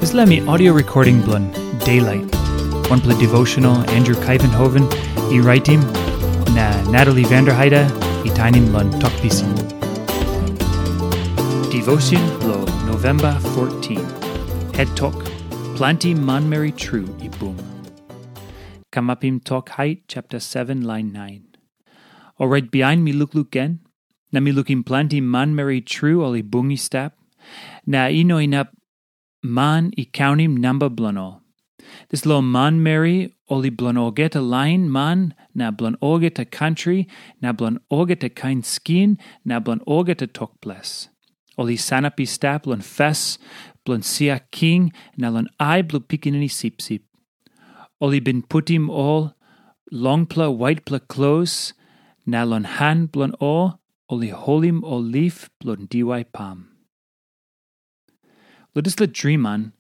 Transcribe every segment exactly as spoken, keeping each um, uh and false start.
Dispela mi audio recording bilong Daylight, wanpela devotional Andrew Kaivenhoven i raitim, na Natalie Vanderheide i tainim long Tok Pisin. Devotion bilong November fourteen. Head Tok, Planti Manmeri Tru i Bung. Kamapim Tok Hait chapter seven, lain nine. Orait bihain mi lukluk gen, na mi lukim planti manmeri tru ol i bung i stap, na i no inap man i kaunim namba bilong ol. Dispela manmeri ol i bilong olgeta lain man, na bilong olgeta kantri, na bilong olgeta kain skin, na bilong olgeta tok ples. Ol i sanap i stap long fes bilong sia king na long ai bilong pikinini sipsip. Ol i bin putim ol longpela waitpela klos, na long han bilong ol, ol i holim ol lif bilong diwai pam. Long dispela driman,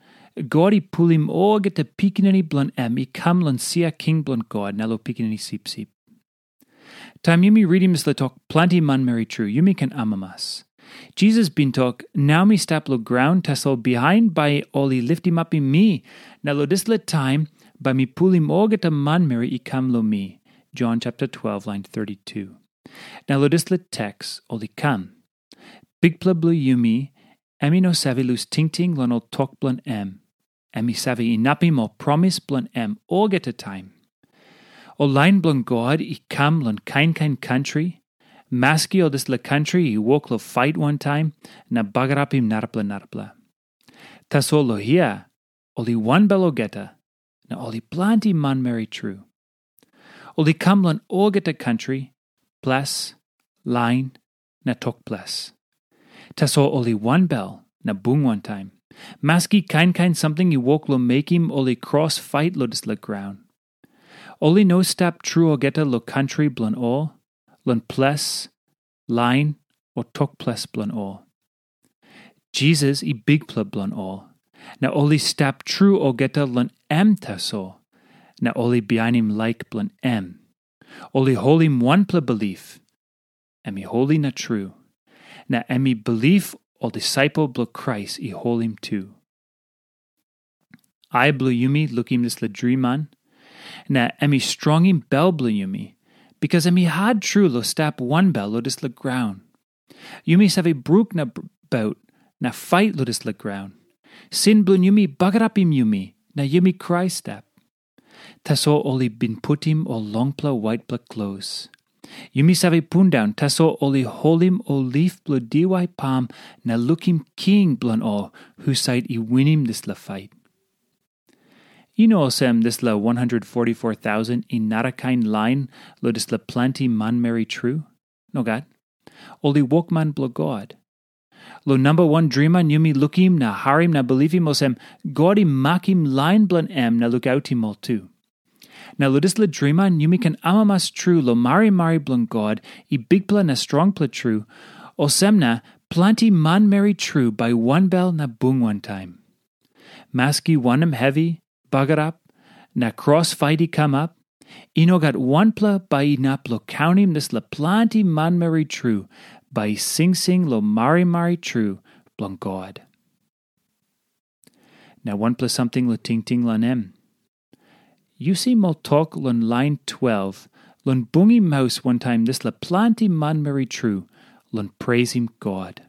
God i pulim olgeta pikinini bilong em i kam long sia king bilong God na long pikinini sipsip. Taim yumi ritim dispela tok planti manmeri tru, yumi ken amamas. Jisas bin tok, "Nau mi stap long graun, tasol bihain bai ol i litimapim mi, na long dispela taim bai mi pulim olgeta manmeri i kam long mi." Jon chapter twelve, lain thirty-two. Na long dispela teks ol i kam. Bikpela bilong yumi, em i no save lus tingting long ol tok bilong em. Em i save inapim ol promis bilong em olgeta taim. Ol lain bilong God i kam long kain kain kantri, maski ol dispela kantri i wok long fait wantaim na bagarapim narapela narapela. Tasol long hia, ol i wanbel olgeta, na ol i planti manmeri tru. Ol i kam long olgeta kantri, ples, lain, na tok ples. Tasol ol i wanbel na bung wantaim, maski kain kain samting i wok long mekim ol i kros fait long dispela graun. Ol i no stap tru olgeta long kantri bilong ol, long ples, lain, o tok ples bilong ol. Jisas i Bikpela bilong ol, na ol i stap tru olgeta long em tasol, na ol i bihainim laik bilong em. Ol i holim wanpela bilip, em i holi na tru, na em i bilip ol disaipel bilong Krais i holim tu. Ai bilong yumi lukim dispela driman, na em i strongim bel bilong yumi, bikas em i hat tru long stap wanbel long dispela graun. Yumi save bruk na baut na fait long dispela graun. Sin bilong yumi bagarapim yumi, na yumi krai stap. Tasol ol i bin putim ol longpela waitpela klos. Yumi save pundaun, tasol ol i holim ol lip bilong diwai pam na lukim king bilong ol husat i winim dispela fait. I no olsem dispela one hundred forty-four thousand i narakain lain long dispela planti manmeri tru. Nogat. Ol i wokman bilong God. Long namba wan driman yumi lukim na harim na bilipim olsem, God i makim lain bilong em na lukautim ol tu. Na long dispela driman yumi ken amamas tru long marimari bilong God i bikpela na strongpela tru, olsem na planti manmeri tru bai wanbel na bung wantaim. Maski wanem hevi, bagarap, na kros fait i kamap, i no gat wanpela bai inap long kaunim dispela planti manmeri tru bai i singsing long marimari tru bilong God. Na wanpela samting long tingting long em. Yu si ol tok long lain twelve long bungim maus wantaim dispela planti manmeri tru long preisim God.